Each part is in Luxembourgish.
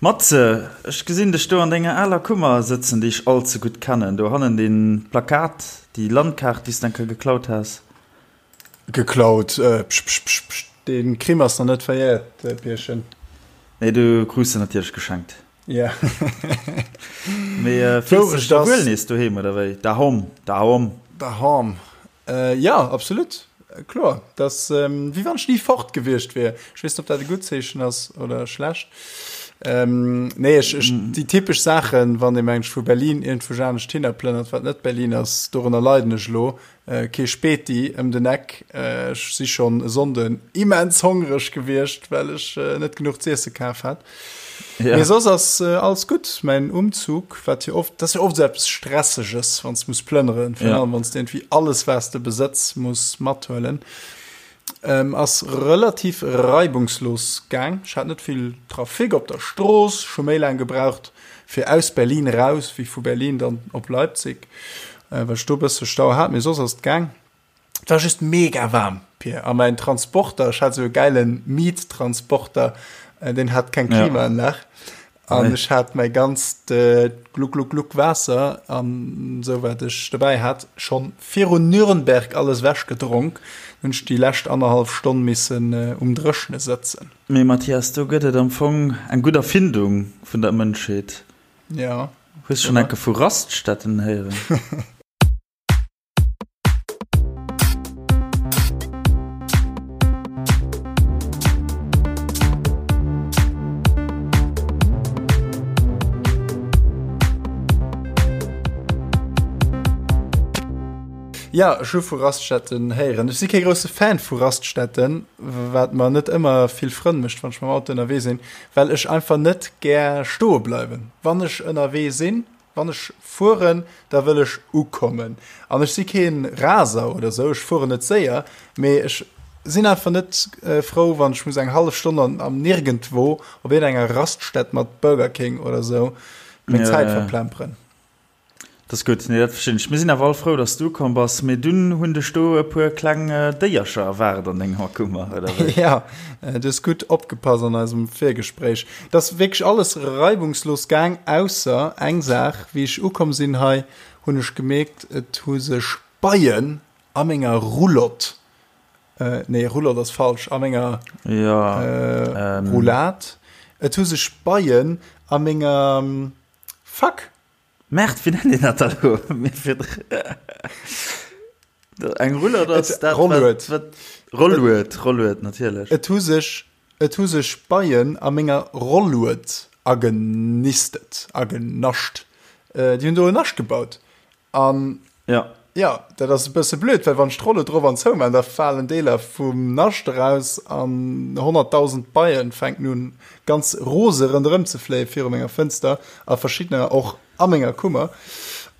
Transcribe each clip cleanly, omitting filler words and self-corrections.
Matze, ech gesinn dech do an denger aler Kummer sëtzen, déi ech all ze gutt kennen. Do hannen dee Plakat, déi Landkaart, déi s de eng Kéier geklaut has. Geklaut? Psch, psch, psch, psch, dee Crime ass nach net verjährt, Pierchen. Nee, du krus se natierlech geschenkt. Ja. Mee fills de dech da wuel nees doheem, oder wéi? Dahom, dahom. Dahom. Jo, absolut. Kloer. Dat ass wéi wann ech ni fort gewiescht wier. Ech weess net, ob dat e gutt Zeechen ass oder schlecht. Nee, ech, ech, déi typesch Saachen, wann ee mengt, vu Berlin iergendwou anescht hinner plënnert, wat net Berlin ass, dorënner leiden ech elo. Kee Späti ëm den Eck. Ech si schonn e Sonnden immens hongreg gewiescht, well ech net genuch z'iesse kaf hat. Ja. Mee soss ass alles gutt. Mäin Umzug, wat jo oft, dat ass jo oft esou eppes Stresseges, wann s de muss plënneren, virun allem wann s de iergendwéi alles, wat s de besëtz, muss mathuelen, ass relativ reibungslos gaang. Ech hat net vill Trafic op der Strooss, ech hu méi laang gebraucht fir aus Berlin eraus wéi vu Berlin dann op Leipzig, well ech do e bësse Stau hat, mee soss ass et gaang. Et war just mega waarm, Pir, a mäin Transporter, ech hat esou e gäile Miet-Transporter, deen hat keng Klimaanlag an ech hat mäi ganzt Gluck Gluck Gluck Waasser an esou wat ech dobäi hat schonn virun Nürnberg alles ewech gedronk. Hunn ech déi lescht annerhallef Stonn missen um Dréchne sëtzen. Mee Mathias, do gëtt et am Fong eng gutt Erfindung vun der Mënschheet. Ja. Hues schonn enke vu Raststätten héieren? Ja, ech hu vu Raststätten héieren. Ech si kee grousse Fan vu Raststätten, wat mer net ëmmer vill Frënn mécht, wann ech mam Auto ënnerwee sinn, well ech einfach net gär stoe bleiwen. Wann ech ënnerwee sinn, wann ech fueren, da wëll ech ukommen. An ech si kee Raser oder sou, ech fueren net séier, mee ech sinn einfach net frou, wann ech muss eng hallef Stonn an am Nirgendwo op iergendenger Raststätt mat Burger King oder sou meng Zäit verplemperen. Dat ass gutt, nee dat verstinn ech. Mir sinn awer all frou, dass du ukomm bass. Mee dunn hunn dech do e puer kleng Déiercher erwaart an denger Kummer, oder wéi? Ja, du hues gutt opgepasst an eisem Virgespréich. Et ass wierklech alles reibungslos gaang, ausser eng Saach, Wéi ech ukomm sinn hei, hunn ech gemierkt, et hu sech Beien a menger Roulotte, nee Roulotte ass falsch, a menger Roulade, et hu sech Beien a menger, fuck! Merde, wéi nennt een dat da lo? Eng Rullert ass dat, Rollued. wat, Rollued, Rollued, natierlech. Et hu sech, et hu sech Beien a menger Rollued agenistet, agenascht. Déi hunn do en Nascht gebaut. An ja. Ja, dat ass e bësse blöd, well wann ech d'Rolle drop an zou man, da falen Deeler vum Nascht eraus an 100.000 Beien fänken un ganz rose ronderëm ze fléie viru menger Fënster a verschiddener och a menger Kummer.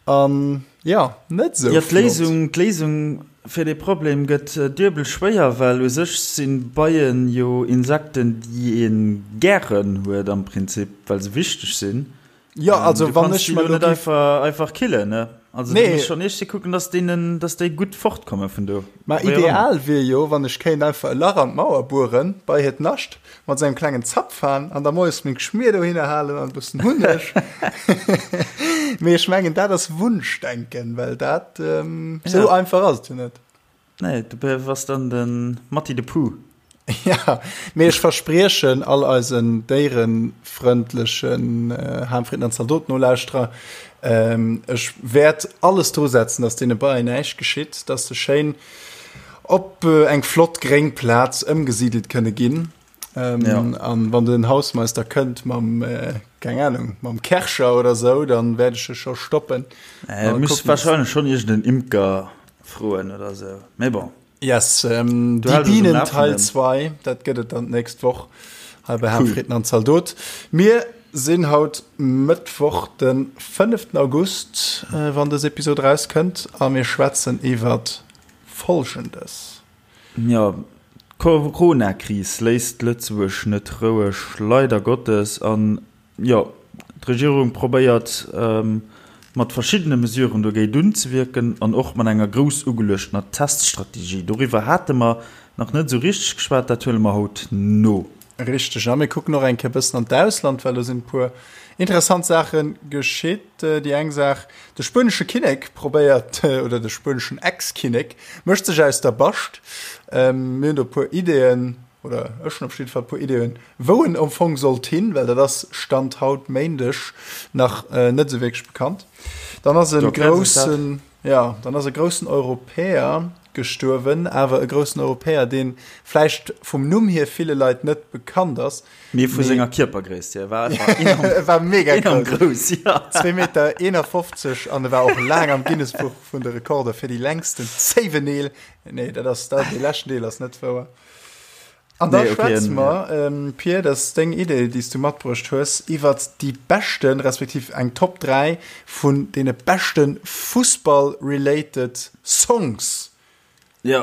An ja, net sou Ja, d'Léisung, d'Léisung fir dee Problem gëtt duebel schwéier, well u sech si Beien jo Insekten, déi ee gären huet am Prinzip, well se wichteg sinn. Ja, also wann ech mer net einfach, einfach killen, ne? Also nee. du muss schon echt kucken, dass denen, dass déi gutt fortkomme vun do. Ma ideal wier jo, wann ech kéint einfach e Lach an d'Mauer bueren, bei hiert Nascht, mat sou engem klengen Zapfhahn an da moies meng Schmier dohinner halen an e bëssen Hunneg. Mee ech mengen, dat ass Wunschdenken, well dat ähm, sou ja. einfach ass et jo net. Nee, du bass dann de Matti de Pooh. Ja, mee ech verspriechen all eisen déierefrëndlechen Ham, Fritten an Zaldot-Nolauschterer, ech wäert alles dru setzen, dass deene Beien näischt geschitt, dass se schéin op eng flott gréng Plaz ëmgesidelt kënne ginn. An wann den Hausmeister kënnt mam, keng Ahnung, mam Kärcher oder sou, dann wäert ech e scho stoppen. Muss wahrscheinlech schonn iergend en Imker froen oder sou, mee bon. Yes, ähm, Die Bienen Teil 2, dat gëtt et dann d'nächst Woch hei bei Ham, Fritten an Zaldot. Mir sinn haut Mëttwoch den 5. August, äh, wann dës Episod rauskënnt, a mir schwätzen iwwer Folgendes. Jo, d'Corona-Kris léisst Lëtzebuerg net roueg, leider Gottes. An Jo, d'Regierung probéiert mat verschiddene Mesuren dogéint unzewierken an och mat enger grouss ugeluechtener Teststrategie. Doriwwer hate mer nach net esou richteg geschwat, dat huele mer haut no. Richteg, a mir kucken och eng Kéier bëssen an d'Ausland, well do sinn e puer interessant Saache geschitt. Déi eng Saach, de spuenesche Kinnek probéiert, oder de spueneschen Ex-Kinnek mécht sech aus der Bascht. Mir hunn do e puer Ideeën, oder ech hunn op jidde Fall e puer Ideeën, wou en am Fong sollt hin, well dat ass Stand haut Méindeg nach net esou wierklech bekannt. Dann ass e groussen, jo, dann ass e groussen Europäer gestuerwen, awer e groussen Europäer, dee vläicht vum Numm hier ville Leit net bekannt ass. Mee vu senger Kierpergréisst hier war e war mega enorm grouss, ja. 2 Meter 51 an e war och laang am Guinness-Buch vun de Rekorder fir déi längsten Zéiweneel. Nee, dat ass, dat, dee leschten Deel ass net wouer. An da nee, okay, schwätze mer, ähm, Pir, dat ass deng Idee, déi s du matbruecht hues, iwwert déi beschten, respektiv eng Top 3 vun deene beschte Fussball-related Songs. Jo,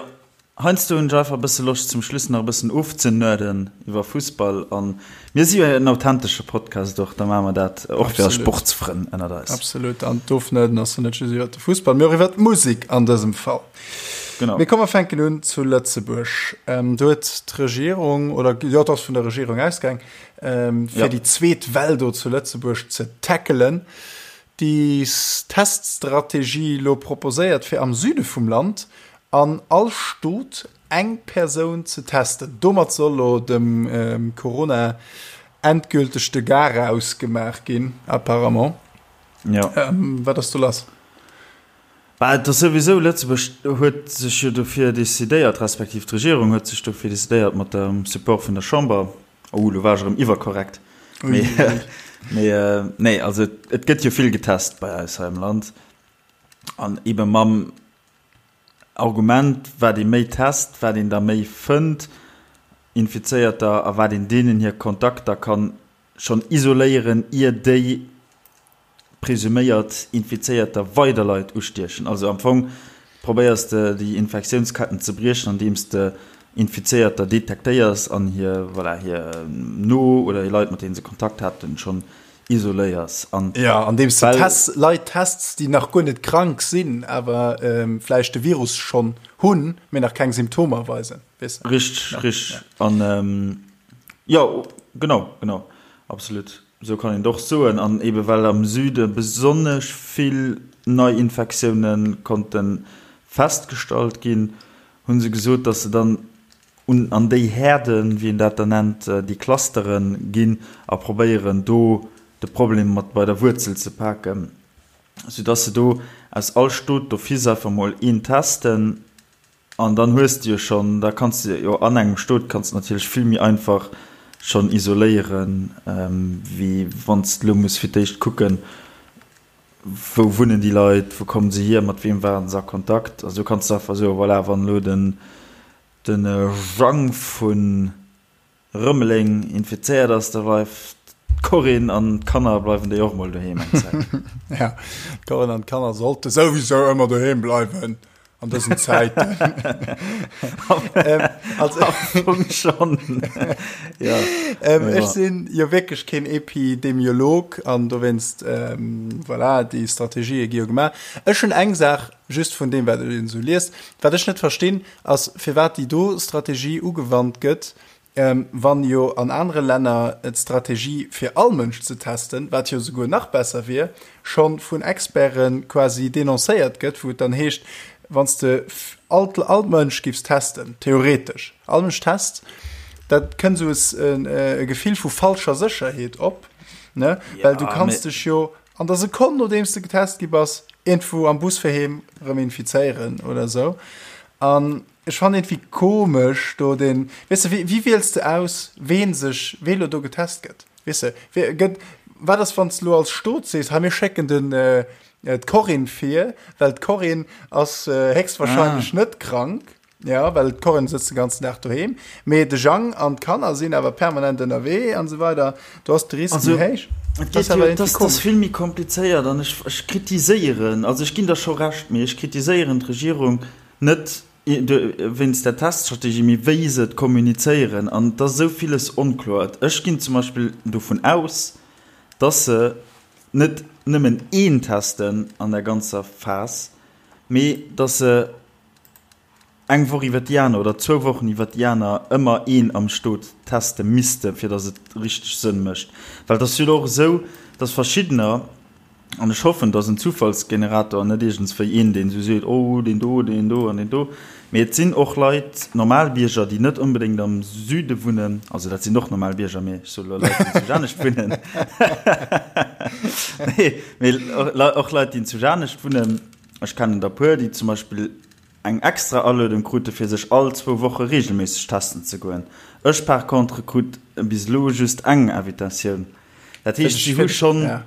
heiansdo hunn ech einfach e bësse Loscht, zum Schluss nach e bëssen ofzenerden iwwer Fussball. An mir si jo en authentesche Podcast och, da maache mer dat och fir eis Sportsfrënn ënnert eis. Absolut, an d'Ofnerden ass jo net just iwwert de Fussball, mee och iwwert d'Musek an dësem Fall. Genau. Mee komm mer fänken un zu Lëtzebuerg. Ähm, do huet d'Regierung, oder jo, et ass vun der Regierung ausgaang, ähm, fir ja. déi zweet Well do zu Lëtzebuerg ze tackelen, déi Teststrategie lo proposéiert, fir am Süde vum Land an all Stot eng Persoun ze testen. Domat soll lo dem ähm, Corona endgülteg de Garaus gemaach ginn, apparemment. Ja. Ähm, wat ass do lass? Bah, et ass souwisou, Lëtzebuerg huet sech jo dofir decidéiert, respektiv d'Regierung huet sech dofir decidéiert mat dem Support vun der Chamber, oh, elo war ech erëm iwwerkorrekt, mee, mee nee, also et gëtt jo vill getest bei eis hei am Land an eebe mam Argument, wat ee méi test, wat een der méi fënnt, Infizéierter, a wat een deenen hir Kontakter kann schonn isoléieren, ier déi presuméiert Infizéierter weider Leit ustiechen. Also am Fong probéiers de déi Infektiounsketten ze briechen, andeems de Infizéierter detektéiers an hir, voilà, hir no oder hir Leit, mat deene se Kontakt haten, schonn isoléiers. An ja, andeems de Test, Leit tests, déi nach guer net krank sinn, awer vläicht de Virus schonn hunn, mee nach keng Symptomer weisen. Weess de? Richteg, ja, richteg. Ja. An jo, genau, genau, absolut. Esou kann een et och soen. An ebe well am Süde besonnesch vill Neiinfektioune konnte festgestallt ginn, hu se gesot, datt se dann un an déi Häerden, wéi een dat da nennt, déi Clustere ginn a probéieren do de Problem mat bei der Wuerzel ze paken, soudatt se do aus all Stot d'office einfach mol een testen. An dann hues de jo schonn, da kanns de jo an engem Stot kanns de natierlech vill méi einfach schonn isoléieren, wéi wann s de elo muss fir d'éischt kucken, wou wunnen déi Leit, wou kommen se hier, mat weem waren se a Kontakt. Also do kanns de einfach soen, voilà, wann elo den de Jang vun Rëmeleng infizéiert ass, da bleift d'Corinne an d'Kanner bleiwen déi och mol doheem eng Zäit. Ja, d'Corinne an d'Kanner sollte souwisou ëmmer doheem bleiwen an dësen Zäiten. ähm, also, Am Fong schon. ja. Ähm, ech sinn jo wierklech keen Epidemiolog an dowéinst, ähm, voilà, déi Strategië gi jo gemaach. Ech hunn eng Saach just vun deem, wat een esou liest, wat ech net verstinn, ass firwat déi do Strategie ugewannt gëtt, wann jo an anere Länner d'Strategie fir all Mënsch ze testen, wat jo souguer nach besser wier, scho vun Experte quasi denoncéiert gëtt, wou et dann heescht, wann s de all all Mënsch giffs testen, theoretesch all Mënsch test, dat kënnt esou e Gefill vu falscher Sécherheet op, ne, well du kanns dech jo an der Sekonn nodeems de getest gi bass, iergendwou am Bus fir heem erëm infizéieren oder esou. An ech fannen iergendwéi komesch do den, weess de, wéi, wéi wiels de aus, ween sech, wee lo do getest gëtt? Weess de, wee gëtt, wat ass wann s de lo als Stot sees, hei mir schécken den, d'Corinne vir, well d'Corinne ass héchstwahrscheinlech net krank. Ja, well d'Corinne sëtzt de ganzen Dag doheem, mee de Jang an d'Kanner sinn awer permanent ënnerwee an esou weider. Do ass de Risk méi héich. Et geet jo, et ass vill méi komplizéiert an ech, ech kritiséieren, also ech ginn der scho Recht, mee ech kritiséieren d'Regierung net wéinst der Teststrategie, mee wéi se et kommunizéieren an et ass esou villes onkloer. Ech ginn zum Beispill dovun aus, dass se net nëmmen een testen an der ganzer Phas, mee dass se. eng Woch iwwer déi aner oder zwou Wochen iwwer déi aner ëmmer een am Stot teste misste fir datt et richteg Sënn mécht. Well et ass jo elo och esou, datt verschiddener, an ech hoffen, datt en Zufallsgenerator an net iergendswéi een, deen esou seet, oh deen do, deen do an deen do, mee et sinn och Leit, normal Bierger, déi net onbedéngt am Süde wunnen, also dat sinn och normal Bierger, mee ech soe elo Leit, déi zu Janescht wunnen, nee, mee och Leit, déi zu Janescht wunnen, ech kennen der e puer, déi zum Beispill eng extra Aluedung krute fir sech all zwou Woche regelméisseg testen ze goen. Ech par contre krut bis elo just eng Invitatioun. Dat heescht si hu schonn,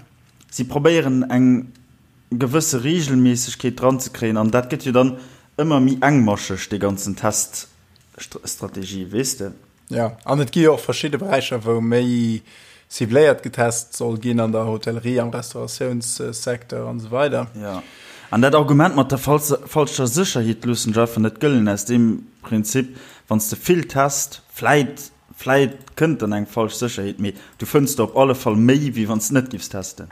si probéieren eng gewësse Regelméissegkeet dran ze kréien an dat gëtt jo dann ëmmer méi engmascheg dee ganzen Teststrategie, weess de. Jo, an et gi jo och verschidde Beräicher, wou méi cibléiert getest soll ginn, an der Hotellerie, am Restauratiounssecteur an esou weider. Jo, an dat Argument mat der falscher Sécherheet loossen ech einfach net gëllen, aus deem Prinzip, wann s de vill test, vläit, vläit kënnt dann eng falsch Sécherheet, mee du fënns der op alle Fall méi, wéi wann s de net giffs testen.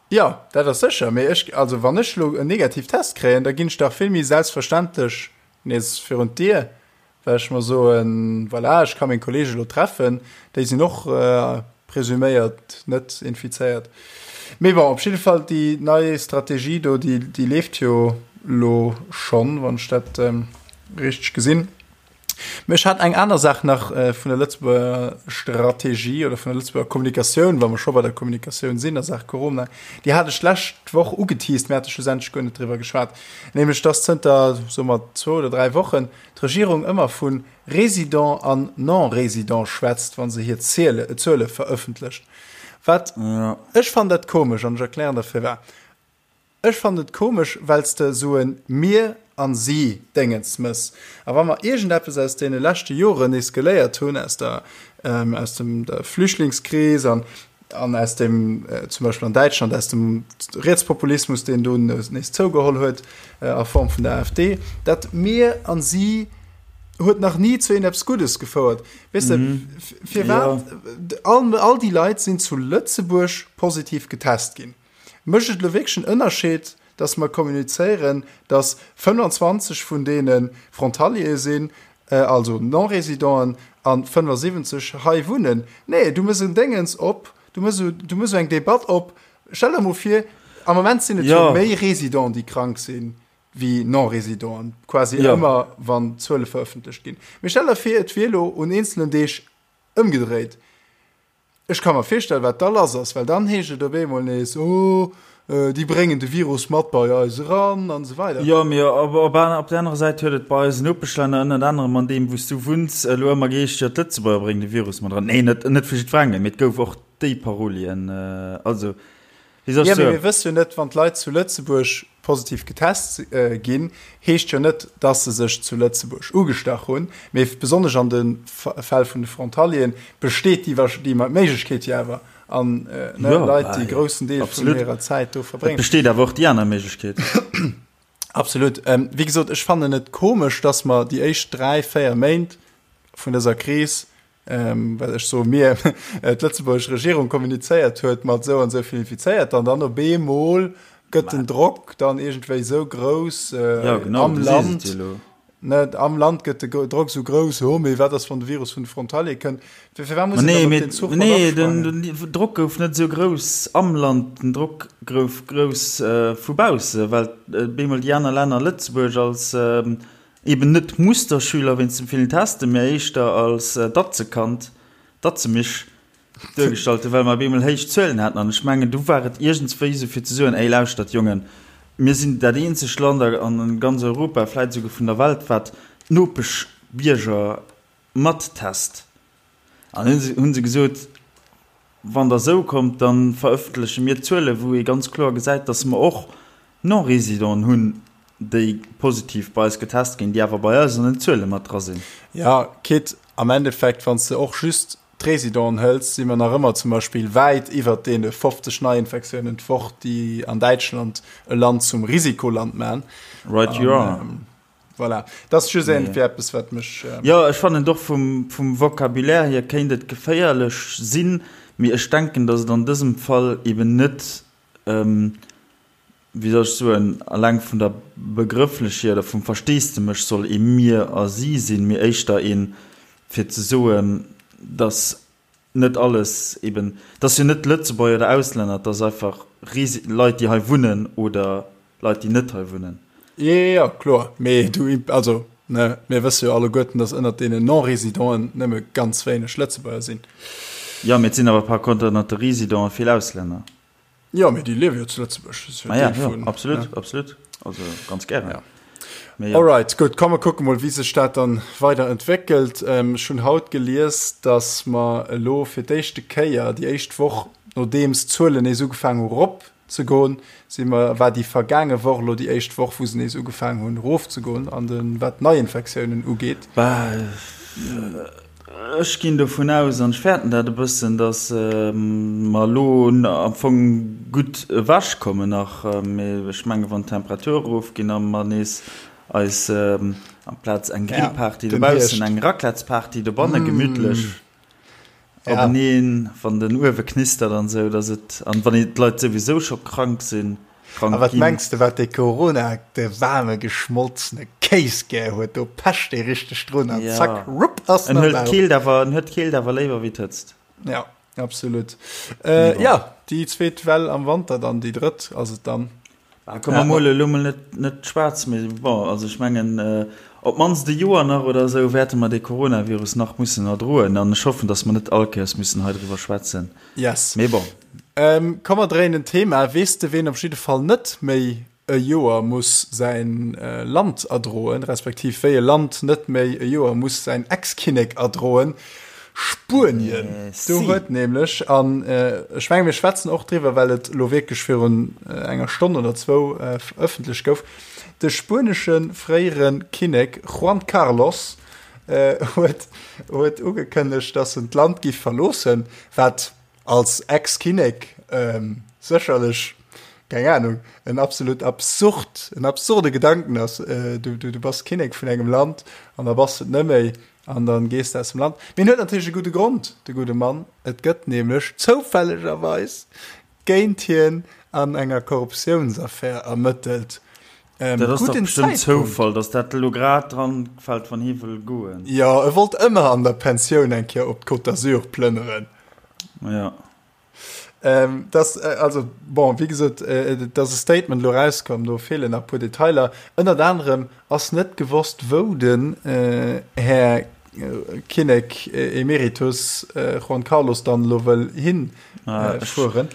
Jo, dat ass sécher, mee ech, also wann ech elo en negativ Test kréien, da ginn ech dach vill méi selbstverständlech nees virun d'Dier, well ech mer soen, voilà, ech ka meng Kollege elo treffen, déi sinn och presuméiert net infizéiert. Mee bon, op jidde Fall, déi nei Strategie do, déi, déi leeft jo elo schonn, wann ech dat richteg gesinn. Mee ech hat eng aner Saach nach vun der Lëtzebuerger Strategie oder vun der Lëtzebuerger Kommunikatioun, wa mer scho bei der Kommunikatioun sinn a Saach Corona, déi hat ech d'lescht Woch ugeteased, mir hate schlussendlech guer net driwwer geschwat, nämlech dass zënter, soe mer, zwou oder dräi Wochen d'Regierung ëmmer vu Résident an Non-Résident schwätzt, wa se hir Zuele verëffentlecht. Wat, ech fannen dat komesch an ech erklären der firwat. Ech fannen et komesch, well s de esou en mir an si Déngens mëss. A wa mer iergendeppes aus deene leschte Joren nees geléiert hunn, aus der, aus dem, der Flüchtlingskris an, an aus dem, zum Beispill an Däitschland, aus dem Rietspopulismus, deen do nees zougeholl huet a Form vun der AfD, dat mir an si huet nach ni zu iergendeppes Guddes gefouert. Weess de, firwat? All, all déi Leit sinn zu Lëtzebuerg positiv getest ginn. Mécht et elo wierklech en Ënnerscheed, dass mer kommunizéieren, dass 25 vun deene Frontaliere sinn, also Non-Résidenten, a 75 hei wunnen? Nee, du méchs en Déngens op, du méchs du méchs eng Debatt op. Stell der emol vir, am Moment sinn et jo méi Résidenten, déi krank sinn, wéi Non-Résidenten, quasi ëmmer, wann d'Zuele verëffentlecht ginn. Mee stell der vir, et wier elo un eenzelen Deeg ëmgedréit. Ech ka mer virstellen, wat da lass ass, well dann heescht et op eemol nees, oh, déi bréngen de Virus mat bei eis eran an esou weider. Jo, mee op op der anerer Säit huet et bei eisen Nopeschlänner, ënnert anerem an deem, wou s du wunns, elo ëmmer geheescht, jo, d'Lëtzebuerger bréngen de Virus mat eran. Nee, net net vu jiddwerengem, mee et gouf och déi Parolien. Also, Wéi soll ech soen? Mir wësse jo net, wann d'Leit zu Lëtzebuerg positiv getest ginn, heescht jo net, dass se sech zu Lëtzebuerg ugestach hunn. Mee besonnesch an de Fäll vun de Frontalieren besteet déi Méiglechkeet jo awer. An Leit, déi e groussen Deel vun hirer Zäit do verbréngen. Et besteet awer och déi aner Méiglechkeet. Absolut. Wéi gesot, ech fannen et komesch, dass mer déi éischt dräi, véier Méint vun dëser Kris well ech soe mir, d'lëtzebuergesch Regierung kommunizéiert huet mat esou an esou vill Infizéierter an dann op eemol gëtt den Drock dann iergendwéi esou grouss ja, genau, am Land, ne, am Land gëtt de Drock esou grouss, oh mee wat ass wann de Virus vun de Frontalier kënnt, firwat muss een dann op den Zuch mat Nee, den Drock gouf net esou grouss am Land, den Drock gouf grouss vu bausse, well op eemol déi aner Länner Lëtzebuerg als Eben net Musterschüler wéinst dem villen Testen, mä éischter als Datzekand, Datzemisch, duergestallt hunn, well mer op eemol héich Zuelen haten. An ech mengen, du war et iergendswéi esou fir ze soen, Ey, lauschtert Jongen, mir sinn dat eenzegt Land a ganz Europa, vläit esouguer vun der Welt, wat d'Nopeschbierger mattest. An hunn se, hunn se gesot, Wann Der esou kommt, da verëffentleche mir Zuelen, wou ee ganz kloer gesäit, dass mer och Non-Résidenten hunn, déi positiv bei eis getest ginn, déi awer bei eis an den Zuele mat dra sinn. Jo, quitte am Endeffekt, wann s de och just d'Résidenten hëls, si mer nach ëmmer zum Beispill wäit iwwert deene 50 Neiinfektiounen d'Woch, déi an Däitschland e Land zum Risikoland man. Right you are. Voilà. Dat ass just iergendwéi eppes, wat mech. Jo, ech fannen et och vum, vum Vocabulaire hier kéint et geféierlech sinn, mee ech denken, datt et an dësem Fall eben net. wéi soll ech soen, alleng vun der Begrëfflechheet oder vum Versteesdemech soll ee mir a si sinn, mee éischter een, fir ze soen, dass net alles eben, et ass jo net Lëtzebuerger oder Auslänner, et ass einfach Resi Leit, déi hei wunnen oder Leit, déi net hei wunnen. Jo, jo, jo, kloer. Mee du, also, ne, mir wësse jo alleguerten, dass ënnert deenen Non-Résidenten nëmme ganz wéineg Lëtzebuerger sinn. Jo, mee et sinn awer par contre ënnert de Résidenten vill Auslänner. Jo, mee déi liewe jo zu Lëtzebuerg. Dat ass jo Deel vun. Ja, absolut, ne? absolut. Also ganz gären. Ja. Mee ja. Alright, gutt, komm mer kucke mol, wéi sech dat dann weider entwéckelt. Ähm, ech hunn haut gelies, dass mer elo fir d'éischte Kéier, déi éischt Woch, nodeems d'Zuelen nees ugefaangen hu rop ze goen, si mer, war déi vergaange Woch elo déi éischt Woch, wou se nees ugefaangen hunn erofzegoen an de wat d'Neiinfektiounen ugeet. Bah, Ech ginn dovun aus, an ech fäerten dat e bëssen, datt mer elo am Fong gutt ewechkommen nach. Mee ech menge wann d'Temperature erofginn a mer nees eis amplaz eng Grillparty dobaussen eng Raclettesparty dobanne gemütlech openeen, wann den Uewe knistert an esou, datt et, an wann d'Leit souwisou scho krank sinn, krank A wat ginn. mengs de, wat dee Corona, de waarme geschmolzene Kéis gär huet? Do pecht dee richteg drun an Ja. zack, rupp, ass En en am huet Bauch. d'Keelt awer, en huet d'Keelt awer léiwer wéi d'Hëtzt. Ja, absolut. Äh, bon. ja, déi zweet Well am Wanter dann, déi drëtt ass et dann. Ah, komm, mer mole elo mol net, net schwaarz, mee bon, also ech mengen, äh, op d'mannst e Joer nach oder esou wäerte mer dee Coronavirus nach mussen erdroen an ech hoffen, dass mer net all Kéiers müssen hei driwwer schwätzen. Yes. Mee bon. Ähm, komm mer dréinen d'Thema. Weess de ween op jidde Fall net méi e Joer muss säin Land erdroen, respektiv wéi e Land net méi e Joer muss säin Ex-Kinnek erdroen? Spuenien. Do huet nämlech, an ech menge mir schwätzen och driwwer, well et elo wierklech virun enger Stonn oder zwou ëffentlech gouf, de spuenesche fréiere Kinnek Juan Carlos huet huet ugekënnegt, datt en d'Land giff verloossen, wat als Ex-Kinnek sécherlech, keng Ahnung, en absolut absurd, en absurde Gedanken ass. Du, du, du bass Kinnek vun engem Land an da bass de et net méi an dann gees de aus dem Land. Mee en huet natierlech e gudde Grond, de gudde Mann. Et gëtt nämlech zoufällegerweis géint hien an enger Korruptiounsaffär ermëttelt. Ähm, dat ass doch bestimmt Zoufall, dass dat elo grad dran fällt, wann hie wëll goen. Jo, e wollt ëmmer an der Pensioun eng Kéier op d'Côte d'Azur plënneren. Ja. Ähm, das, äh, also, bon, wéi gesot, äh, et ass e Statement elo rauskomm, do feelen nach e puer Detailer. Ënnert anerem ass net gewosst, wou den äh, Här äh, Kinnek äh, Emeritus äh, Juan Carlos dann elo wëll hin äh, fueren.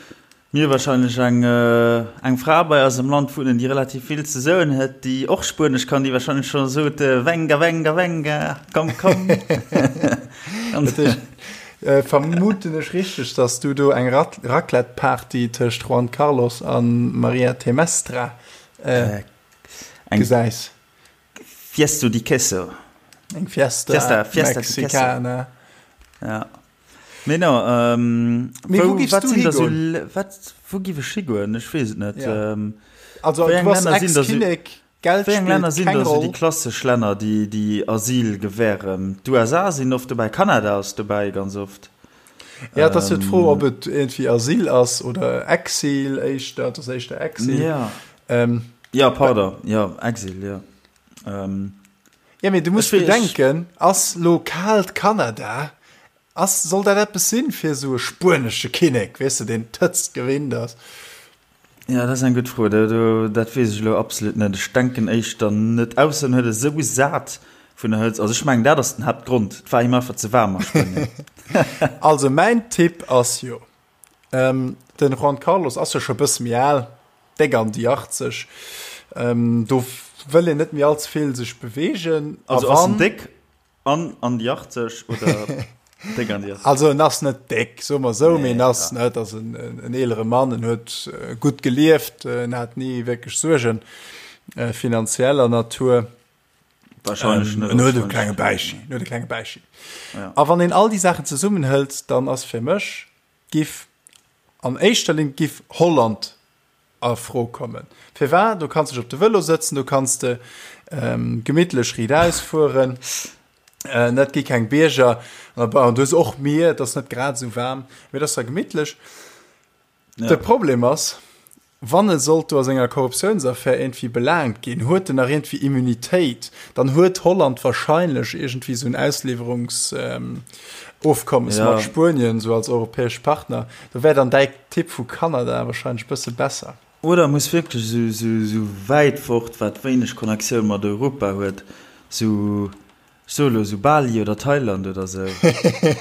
Mir wahrscheinlech eng eng Fra bei eis am Land wunnen, déi relativ vill ze soen huet, déi och Spuenesch kann, déi wahrscheinlech scho sot, Venga, venga, venga, komm, komm. Dat heescht, vermuten ech richteg, dass du do eng Raclette-Party tëscht Juan Carlos a Maria Temestra gesäis? Fiesto di queso. Eng Fiesta, Fiesta, Fiesta Mexicana. Ja. Mee no, ähm, Mee wou giffs du higoen? Wat, wou giff ech higoen? Ech weess et net. Ja. Ähm, also, du bass Ex-Kinnek, Geld wéi eng Länner sinn da sou déi klassesch Länner, déi, déi Asyl gewähren? D'USA sinn oft dobäi, Kanada ass dobäi ganz oft. Ja, et ass jo d'Fro, ob et iergendwéi Asyl ass oder Exil éischter. Et ass éischter Exil. Ja. Ähm, ja, pardon, ja, Exil, ja. Ähm, ja, mee du muss bedenken, ass lo kaalt Kanada, ass, soll dat eppes sinn fir esou e spuenesche Kinnek, weess de, deen d'Hëtzt gewinnt ass? Ja, dat ass eng gutt Fro. Do, do, dat weess ech elo absolut net. Ech denken éischter net. Ausser en huet et esou sat vun der Hëtzt. Also ech mengen, dat ass den Haaptgrond. Et war him einfach ze waarm a Spuenien. Also mäin Tipp ass jo, ähm, den Juan Carlos ass jo scho bësse méi al, déck an déi 80, ähm, do wëll een net méi allze vill sech beweegen. Also ass en déck? An an déi 80 oder déck an déi 80? Also en ass net déck, soe mer esou, mee en ass, ne, et ass en, en eelere Mann, en huet gutt gelieft, en hat ni wierklech Suergen finanzieller Natur. Wahrscheinlech net. En huet e klenge Bäichi, en huet e klenge Bäichi. A wann een all déi Saachen zesummenhëlt, dann ass fir mech, giff an éischter Linn giff Holland a Fro kommen. Firwat? Do kanns de dech op de Vëlo sëtzen, do kanns de gemittlech riichtaus fueren, et gi keng Bierger, an du hues och Mier, et ass net grad esou waarm, mee et ass da gemittlech. De Problem ass. Wann e sollt do a senger Korruptiounsaffär iergendwéi belaangt ginn, huet en nach iergendwéi Immunitéit, dann huet Holland wahrscheinlech iergendwéi esou en Ausliwwerungsofkommes Ja. mat Spuenien, esou als europäesch Partner. Do wär dann däi Tipp vu Kanada wahrscheinlech e bësse besser. Oder muss wierklech esou, esou, esou wäit fort, wat wéineg Connectioun mat Europa huet, esou Ech soe lo sou Bali oder Thailand oder sou.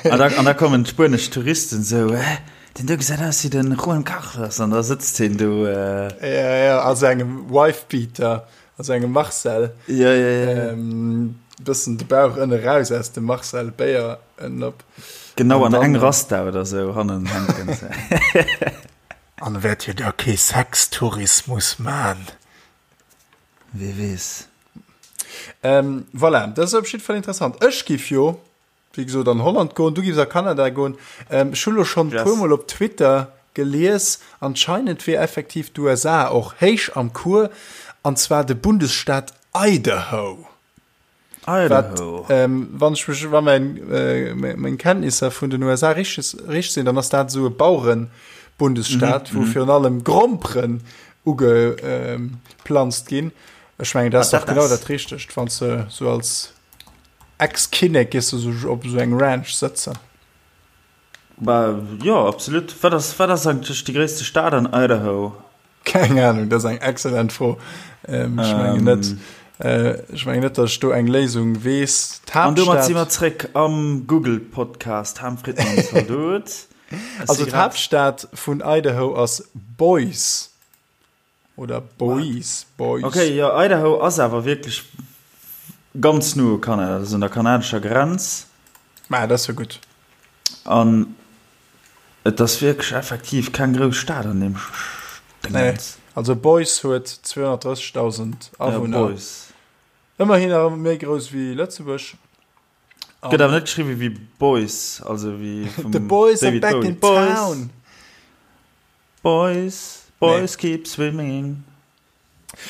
An da, an da kommen d'spuenesch Touristen sou, Hä, deen do gesäit aus wéi de Juan Carlos. An da sëtzt hien do. Äh. Ja, ja, a sengem Wifebeater, a sengem Marcel. Ja, ja, ja. Ähm, bëssen de Bauch ënne raus aus dem Marcel Béier ënnen op. Genau, an eng Rasta oder sou hannen hänken. An wäert hie da kee Sextourismus man? Wie weess. Ähm, voilà, dat ass op jidde Fall interessant. Ech giff jo, wéi gesot, an Holland goen, du giffs a Kanada goen. Ähm, ech hu lo schonn e Yes. puermol op Twitter gelies, anscheinend wier effektiv d'USA och héich am Cours, an zwar de Bundesstaat Idaho. Idaho. Wat, ähm, wann ech mech, wa mein, äh, meng Kenntnisser vun den USA richteg, richteg sinn, dann ass dat esou e Bauerenbundesstaat, wou virun allem Gromperen ugeplanzt ginn. Ech mengen, dat ass Wat dach dat genau ass. dat Richtegt, wann s de sou als Ex-Kinnek gees du sou op esou eng Ranch sëtzen. Bah, jo, absolut. Wat ass, wat ass eigentlech déi gréisste Stad an Idaho? Keng Ahnung, dat ass eng excellent Fro. Ähm, ech mengen net, äh, ech mengen net, datt ech do eng Léisung weess. An domat si D'Haaptstad, mer zréck am Google-Podcast. Ham Fridmann, Zaldot. Ech also si grad. d'Haaptstad vun Idaho ass Boise oder Boise, Boise. Okay, jo, Idaho ass awer wierklech ganz no u Kanada, dat ass un der kanadescher Grenz. Ma dat ass jo gutt. An et ass wierklech effektiv keng grouss Stad an deem Nee, Dingens. also Boise huet 230.000 Ja, Awunner. Boise. Ëmmerhin awer méi grouss wéi Lëtzebuerg. Gëtt awer net geschriwwe wéi Boys, also wéi vum The boys are David back Bowie. in Boys, town. Boys, boys Nee. keep swimming.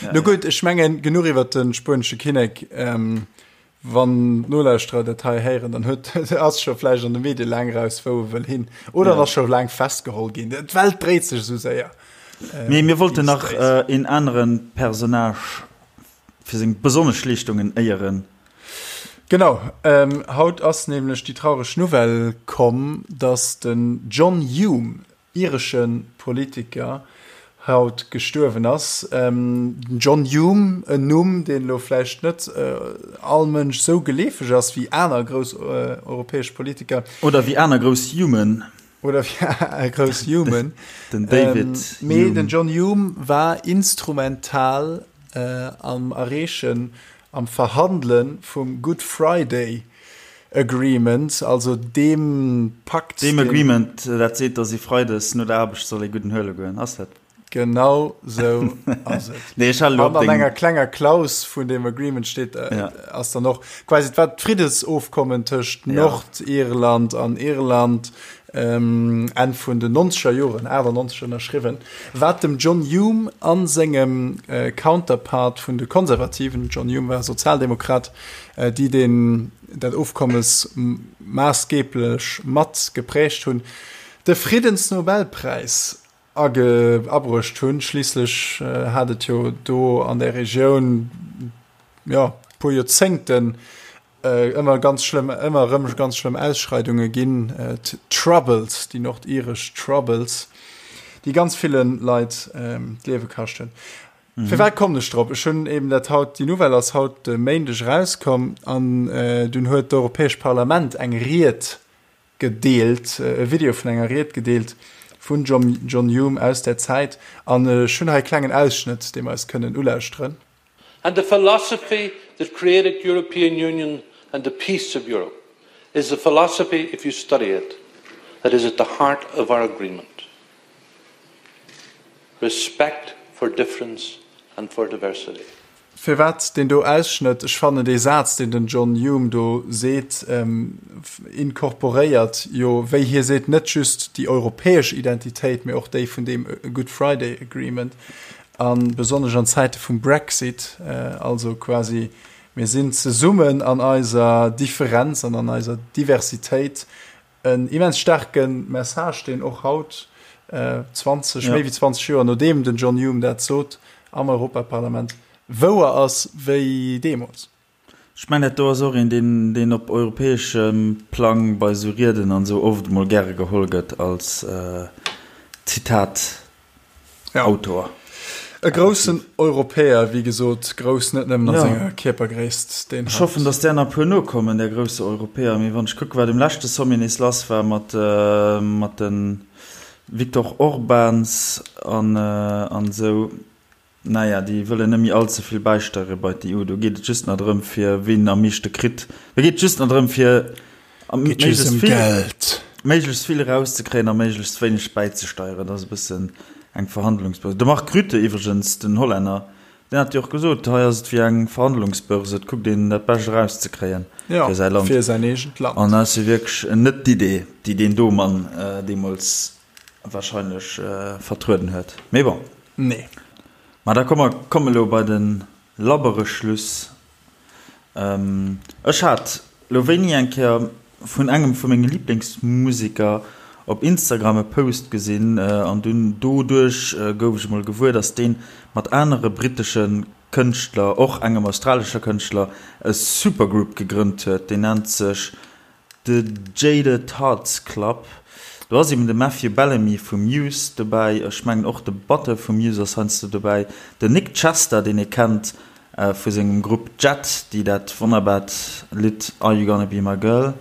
Ja, No ja. gutt, ech mengen, genuch iwwer de spuenesche Kinnek. Ähm, wann d'Nolauschterer dat hei héieren, dann huet ass scho vläicht an de Medie laang raus, wou e wëll hin. Oder Ja. ass scho laang festgeholl ginn. D'Welt dréit sech esou séier. Mee mir wollten Déi nach dréit. äh, een aneren Personnage fir seng besonnesch Leeschtungen éieren. Genau, ähm, haut ass nämlech déi traureg Nouvelle komm, dass den John Hume, iresche Politiker, haut gestuerwen ass. Ähm, den John Hume, en Numm, deen elo vläicht net äh, all Mënsch sou geleefeg ass wéi aner grouss äh, europäesch Politiker. Oder wéi aner grouss Humen. Oder wéi grouss Humen. Den David ähm, mee Hume. den John Hume war instrumental äh, am Erreechen, am Verhandele vum Good Friday Agreement, also deem Pakt, Deem deen. Agreement, dat seet, datt ee freides no der Aarbecht soll ee gudden huele goen, ass dat? Genau sou ass et. Nee, ech halen elo An op an deng. enger klenger Klaus vun deem Agreement steet, äh, Ja. ass dann och quasi, et war d'Friddesofkommen tëscht Ja. Nordirland an Irland, ähm, Enn vun den nonzeger Joren, 98 ënnerschriwwen, wat dem John Hume a sengem äh, Counterpart vun de Konservativen, John Hume war Sozialdemokrat, äh, déi deen, dat Ofkommes maassgeeblech mat geprägt hunn, de Friddensnobelpräis age abruecht hunn. Schliisslech hat et jo do an där Regioun, jo, puer Joerzéngten ëmmer ganz schlëmm, ëmmer erëm ganz schlëmm Ausschreidunge ginn, d'Troubles, déi nordiresch Troubles, déi ganz ville Leit d'Liewe kascht hunn. Firwat kommen ech drop? Ech hunn eben dat haut, déi Nouvelle ass haut de Méindeg erauskomm an dunn huet d'Europäescht Parlament eng Ried gedeelt, e Video vun enger Ried gedeelt vun John Hume aus där Zäit an ech hunn hei e klengen Ausschnëtt, dee mer eis kënnen ulauschteren. And the philosophy that created European Union and the peace of Europe is the philosophy, if you study it, that is at the heart of our agreement. Respect for difference and for diversity. Firwat deen do Ausschnëtt? Ech fannen dee Saz, deen den John Hume do seet, incorporéiert jo, wéi hie seet, net just déi europäesch Identitéit, mee och déi vun deem Good Friday Agreement, a besonnesch an Zäite vum Brexit, also quasi mir sinn zesummen an eiser Differenz an an eiser Diversitéit. en immens staarke Message, deen och haut, 20, méi wéi 20 Joer nodeem den John Hume dat sot am Europaparlament, wouer ass wéi deemools. Ech mengen, dat do ass och een, deen, deen op europäeschem Plang bei esou Rieden an esou oft emol gäre geholl gëtt als Zitat-Autor. E groussen Europäer, wéi gesot, grouss net nëmmen a senger Kierpergréisst, deen hat. Ech hoffen, datt där nach e puer nokommen, där grousse Europäer. Mee wann ech kucken, wat um leschte Sommet nees lass war mat, mat de Viktor Orbáns an, an esou, Naja, déi wëllen net méi all ze vill bäisteiere bei d'EU. Do geet et just nach drëm, fir wien am meeschte kritt. Do geet et just nach drëm, fir méiglechst vill, méiglechst vill erauszekréien a méiglechst wéineg bäizesteieren. Dat ass e bëssen eng Verhandlungsbörse. De Mark Rutte iwwregens, den Hollänner, deen hat jo och gesot, hei ass et wéi eng Verhandlungsbörse, et kuckt een dat Bescht erauszekréien fir säi Land. Fir säin eegent Land. An dat ass jo wierklech net d'Idee, déi deen do Mann deemools wahrscheinlech vertrueden huet. Mee bon. Nee. Ma da komme mer elo bei de labbere Schluss. Ech hat elo wéini eng Kéier vun engem vu menge Liblingsmuseker op Instagram e Post gesinn an dunn doduerch gouf ech emol gewuer, dass deen mat anere brittesche Kënschtler, och engem australescher Kënschtler, e Supergroup gegrënnt huet. Deen nennt sech The Jaded Hearts Club, do ass eben de Matthew Bellamy vu Muse dobäi, ech mengen och de Batteur vu Muse ass heiansdo dobäi, den Nic Chester, deen ee kennt vu sengem Grupp Jet, déi dat wonnerbart Lidd Are You Gonna Be My Girl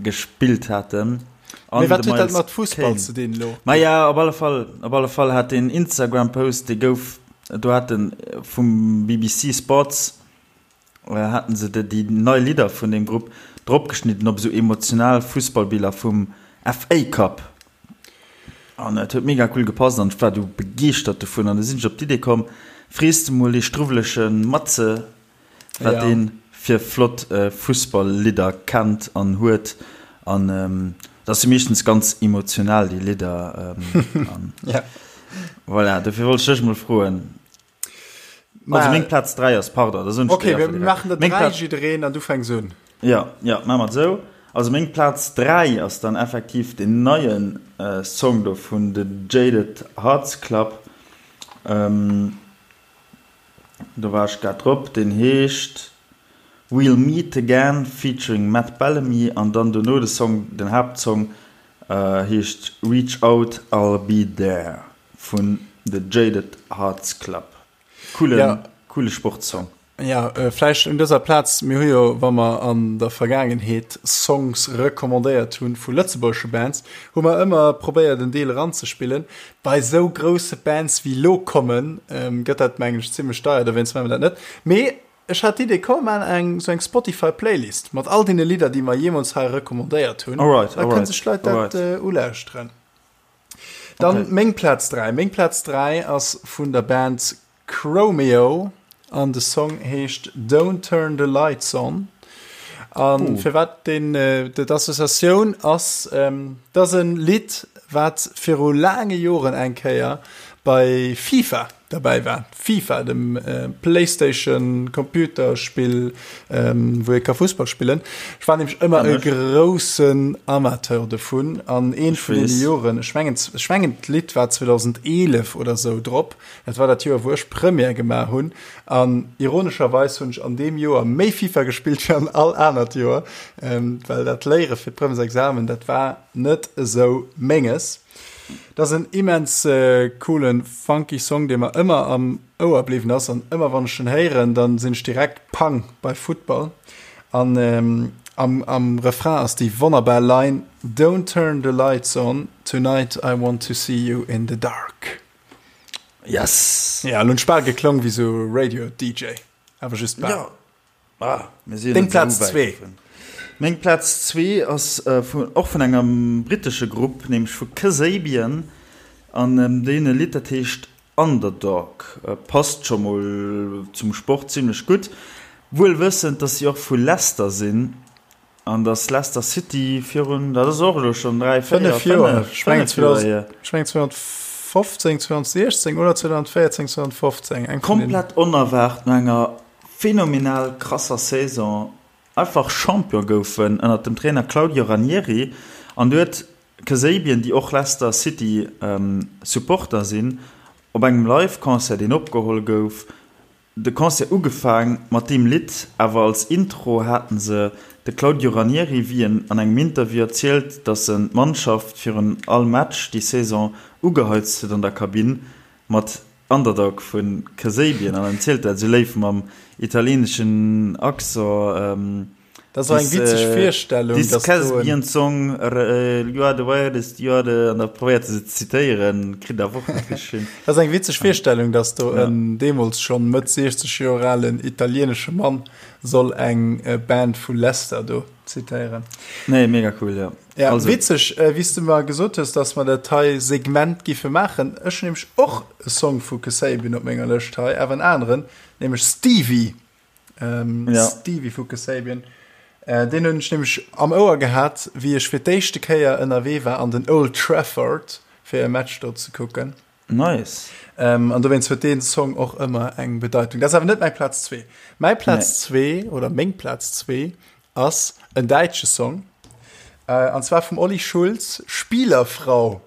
gespillt haten. Mee wat huet dat mat Fussball ze dinn elo? Maja, op alle Fall, op alle Fall hat deen Instagram-Post, dee gouf, do hat en vum BBC Sports, haten se déi nei Lidder vun deem Grupp dropgeschnidden op esou emotional Fussballbiller vum FA Cup. An et huet mega cool gepasst an ech war du begeeschtert dovun. An du sinn ech op d'Idee komm, frees de mol dee struwwelege Matze, wat ja. deen fir flott äh, Fussballlidder kennt an huet an ähm, dat si meeschtens ganz emotional déi Lidder ähm, an, ja. Voilà, dofir wollt ech dech mol froen. Also meng Platz 3 ass pardon, da soen ech Okay, wir maachen der 3 jiddereen an du fänks un. Ja, ja, maache mer et esou. Also meng Platz 3 ass dann effektiv den neien äh, Song do vun The Jaded Hearts Club. Ähm, Do war ech grad drop. Deen heescht We'll Meet Again featuring Matt Bellamy an dann dono de Song, den Haaptsong heescht Reach Out I'll Be There vun The Jaded Hearts Club. Coolen, coole Sportsong. Jo, vläicht un dëser Plaz, mir hu jo, wa mer an der Vergaangenheet Songs recommandéiert hunn vu lëtzebuergesche Bands, hu mer ëmmer probéiert en Deel eranzespillen. Bei sou grousse Bands wéi lo kommen, gëtt dat mengen ech zimlech deier, dowéinst maache mer dat net. Mee ech hat d'Idee, komm mer maachen eng sou eng Spotify Playlist mat all deene Lidder déi mer jeemools hei recommandéiert hunn, da kënne sech d'Leit dat ulauschteren. Dann meng Plaz 3. Meng Plaz 3 ass vun der Band Chromeo an de Song heescht Don't Turn the Lights On. An oh. firwat den äh, d'Associatioun ass ähm, dat en Lidd, wat viru laange Joren eng Kéier bei FIFA derbäi war. FIFA, dem äh, PlayStation Computerspill, ähm, wou ee ka Fussball spillen. Ech war nämlech ëmmer e groussen Amateur dovun an een vun deene Joren, ech mengen, ech mengen d'Lidd war 2011 oder sou drop, dat war dat Joer wou ech Première gemaach hunn an ironescherweis hunn ech an deem Joer méi FIFA gespillt wéi an all anert Joer, ähm, well dat Léiere fir d'Premièresexamen, dat war net esou menges. Dat ass en immens coolen funky Song dee mer ëmmer am Ouer bliwwen ass an ëmmer wann ech en héieren dann sinn ech direkt pang bei Futtball an am am Refrain ass déi wonnerbar Line Don't turn the lights on tonight I want to see you in the dark. Yes! Ja, lo hunn ech bal geklong wéi sou Radio DJ, awer just bal. Ja. Ah, mir sinn Deng Plaz zwee. Meng Plaz zwee ass vun, och vun engem brittesche Grupp, nämlech vu Kasabian an déi hunn e Lidd, dat heescht Underdog. Passt scho mol zum Sport zimmlech gutt, wuel wëssend, dass si och vu Leicester sinn an dass Leicester City virun, dat ass och elo schonn 3, 4, 5 Joer, 5 Joer hier. Ech mengen 2015, 2016 oder 2014, 2015, eng vun deenen. Komplett onerwaart no enger. phänomenal krasser Saison einfach Champion goufen ënnert dem Trainer Claudio Ranieri an du huet Kasabian, déi och Leicester City Supporter sinn, op engem Live-Concert deen opgeholl gouf, de Concert ugefaang mat deem Lidd, awer als Intro haten se de Claudio Ranieri, wéi en an engem Interview erzielt, datt en d'Mannschaft virun all Match déi Saison ugeheizt huet an der Kabinn mat Underdog vu Kasabian an en zielt dat esou léif mam italieeneschen Accent. Dat ass och eng witzeg Virstellung, dass do en. This Kasabian song, you are the weirdest, you are the. An da probéiert e se ze zitéieren, kritt awer och net richteg hin. Dat ass eng witzeg Virstellung, dass do en deemools schonn Mëtt 60 Joer alen italieenesche Mann soll eng Band vu Leicester do zitéieren. Nee, mega cool, jo. Ja, also. Witzeg, wéi s du mer gesot hues, dass mer dat hei Segment giffe maachen. Ech hunn nämlech och e Song vu Kasabian op menger Lëscht hei, awer en aneren, nämlech Stevie. Ähm, ja. Stevie vu Kasabian. Äh, deen hunn ech nämlech am Ouer gehat, wéi ech fir d'éischte Kéier ënnerwee war an den Old Trafford, fir e Match do ze kucken. Nice. Ähm, an dowéinst huet deen Song och ëmmer eng Bedeitung. Dat ass awer net mäi Plaz zwee. Mäi Plaz zwee oder meng Plaz zwee ass en däitsche Song. Äh, an zwar vum Olli Schulz, Spielerfrau.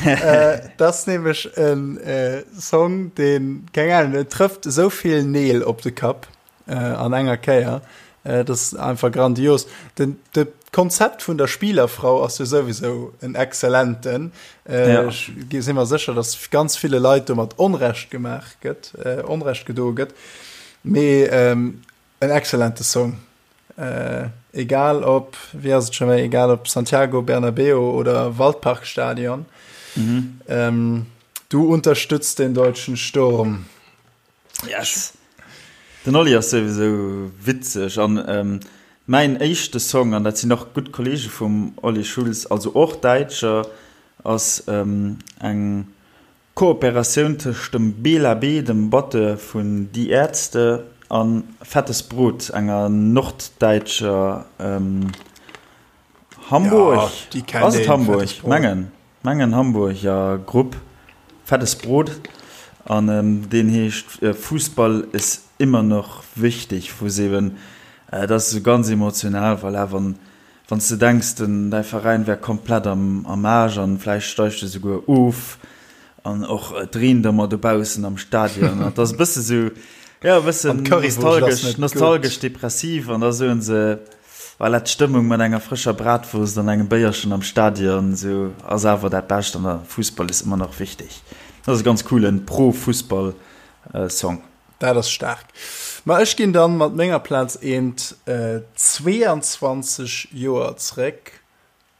äh, dat ass nämlech en äh, Song, deen, keng Ahnung, den trëfft esou vill Neel op de Kapp äh, an enger Kéier. Äh, dat ass einfach grandios. Den, de Konzept vun der Spielerfrau ass jo souwisou en exzellenten. Äh, ja. Ech si mer sécher, dass ganz ville Leit domat Onrecht gemaach gëtt, äh, Onrecht gedoe gëtt. Mee ähm, En excellente Song. Egal op, wéi ass et scho méi, egal op Santiago Bernabéu oder Waldparkstadion. Mhm. Du unterstützt den deutschen Sturm. Yes. Den Olli ass souwisou witzeg an mäin éischte Song, an dat sinn och gutt Kollege vum Olli Schulz, also och Däitscher, ass eng Kooperatioun tëscht dem Bela B, dem Batteur vun Die Ärzte, a Fettes Brot, enger norddäitscher, Hamburg? Ass et Hamburg? Mengen, mengen Hamburger Grupp, Fettes Brot, an deen heescht Fußball ist immer noch wichtig, wou se eben, dat ass esou ganz emotional, voilà, wann Wann s de denks, den däi Veräin wär komplett am am Aarsch an vläicht steigt e souguer of an och et reent ëmmer dobaussen am Stadion an et ass e bësse sou, jo e bëssen nostalgesch, nostalgesch depressiv an da soen se, voilà, d'Stëmmung mat enger frëscher Bratwurst an engem Béierchen am Stadion sou ass awer dat Bescht an der Fussball ist immer noch wichtig. Dat ass e ganz coolen Pro-Fussball Song. Dat ass staark. Ma ech ginn dann mat menger Plaz eent 22 Joer zréck,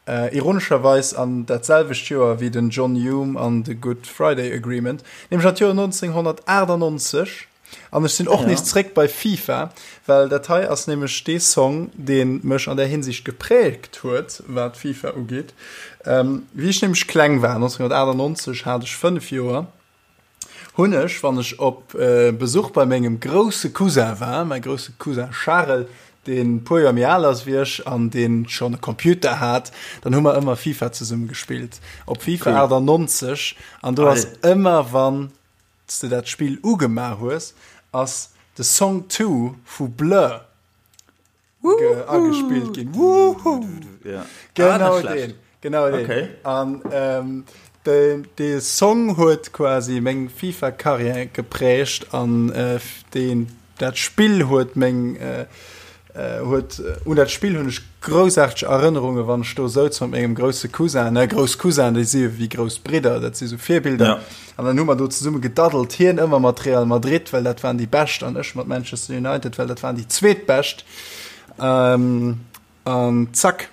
ironescherweis an dat selwecht Joer wéi den John Hume an de Good Friday Agreement, nämlech an d'Joer 1998. An ech sinn och nees zréck bei FIFA, well dat hei ass nämlech dee Song, dee mech an där Hinsicht gepräägt huet, wat FIFA ugeet. Wéi ech nämlech kleng war, 1998 hat ech 5 Joer, hunn ech, wann ech op Besuch bei mengem grousse Cousin war, mäi grousse Cousin Charel, deen e puer Joer méi al ass wéi ech an deen schonn e Computer hat, dann hu mer ëmmer FIFA zesumme gespillt, op FIFA 98. An do ass ëmmer, wann s de dat Spill ugemaach hues, ass de Song 2 vu Blur agespillt ginn. Woohoo! Ja. Genau ah, den. Genau den. Okay. An ähm, de, de Song huet quasi meng FIFA-Karriär geprägt an äh, den, dat Spill huet meng äh, äh, huet äh, un dat Spill hunn ech groussaarteg Erënnerunge wann ech do souz mat mengem grousse Cousin, ne grouss Cousin, déi si wéi grouss Bridder, dat si sou Virbilder. Ja. An dann hu mer do zesumme gedaddelt, hien ëmmer mat Real Madrid, well dat waren déi Bescht, an ech mat Manchester United, well dat waren déi Zweetbescht. Ähm, an zack,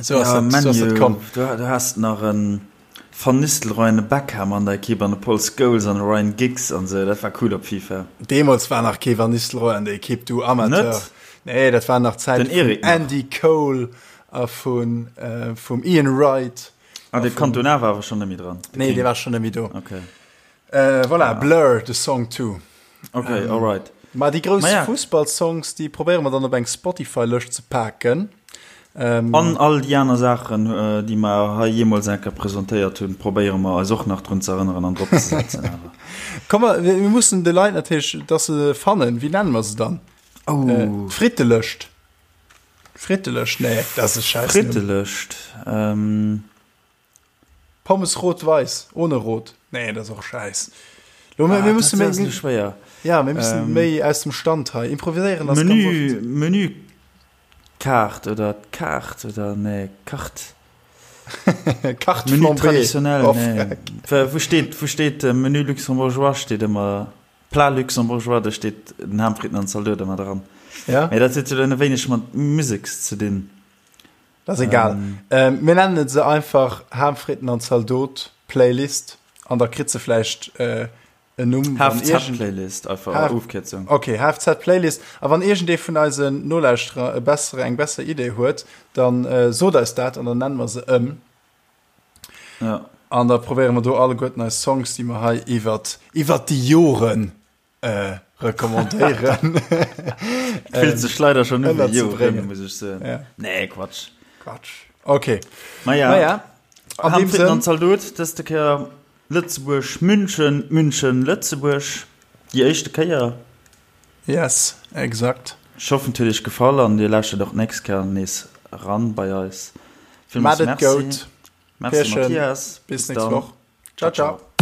sou ass dat, sou ass dat komm. Du, du has nach en Van Nistelrooy an e Beckham an der Ekipp an e Paul Scholes an e Ryan Giggs an sou, dat war cool op FIFA. Deemools war nach kee Van Nistelrooy an der Ekipp, du Amateur. Net? Nee, dat war nach d'Zäit Den Eric vum nach. Andy Cole a vun, äh, vum Ian Wright. Ah, de Cantona war awer schonn net méi dran. Nee, dee war schonn net méi do. Okay. Äh, voilà, ah. Blur, de Song 2. Okay, ähm, alright. Ma déi grouss ja. Fussballsongs, déi probéiere mer dann op eng Spotify-Lëscht ze paken. Ähm, An all déi aner Saachen, äh, déi mer hei jeemools eng Kéier presentéiert hunn, probéiere mer eis och nach drun ze erënneren an drop ze setzen. Komm, mir mussen de Leit natierlech, dass se fannen. Wéi nenne mer se dann? Oh. Äh, Frittelëscht. Frittelëscht, nee, dat ass e Schäiss. Frittelëscht. Ähm. Pommes rot-weiß, ohne rot. Nee, dat ass och Schäiss. Lo, ah, mir mussen méi, mir, schwéier. Ja, mir müssen ähm, méi aus dem Stand hei improviséieren. Menü, Menükaart oder Kaart oder nee, Kart. Carte Menü flambée. traditionnel, Oh, nee. fuck. Wou steet, wou steet äh, Menu luxembourgeois steet ëmmer Plat luxembourgeois, do steet den Ham, Fritten an Zaldote ëmmer dran. Ja? Mee dat huet jo dann e wéineg mat Musek ze dinn. Dat ass egal. Ähm. Ähm, mir nennen se einfach Ham, Fritten an Zaldot Playlist an da kritt se vläicht äh, en Numm. wann irgend- HFZ-Playlist, einfach H- Ofkierzung. Okay, HFZ-Playlist. A wann iergendee vun eisen Nolauschterer e bessere, eng besser Idee huet, dann äh, sot eis dat an dann nennen mer se ëm. Ja. An da probéiere mer do alleguerten eis Songs, déi mer hei iwwert, iwwert déi Joren äh, recommandéieren. Fillt sech leider schon un wéi Joren, ënnerzebréngen. muss ech soen. Ja. Nee, Quatsch. Quatsch. Okay. Maja, Naja, an Ham, deem Fritten an Sënn, Zaldot, dëste Kéier Lëtzebuerg, München, München, Lëtzebuerg, déi éischte Kéier. Yes, exakt. Ech hoffen et huet iech gefall an dir lauschtert och d'nächst Kéier nees eran bei eis. Villmools Maat et Merci. goud. Merci Pierchen, Mathias. bis Bis nächst dann. Woch. Ciao, ciao.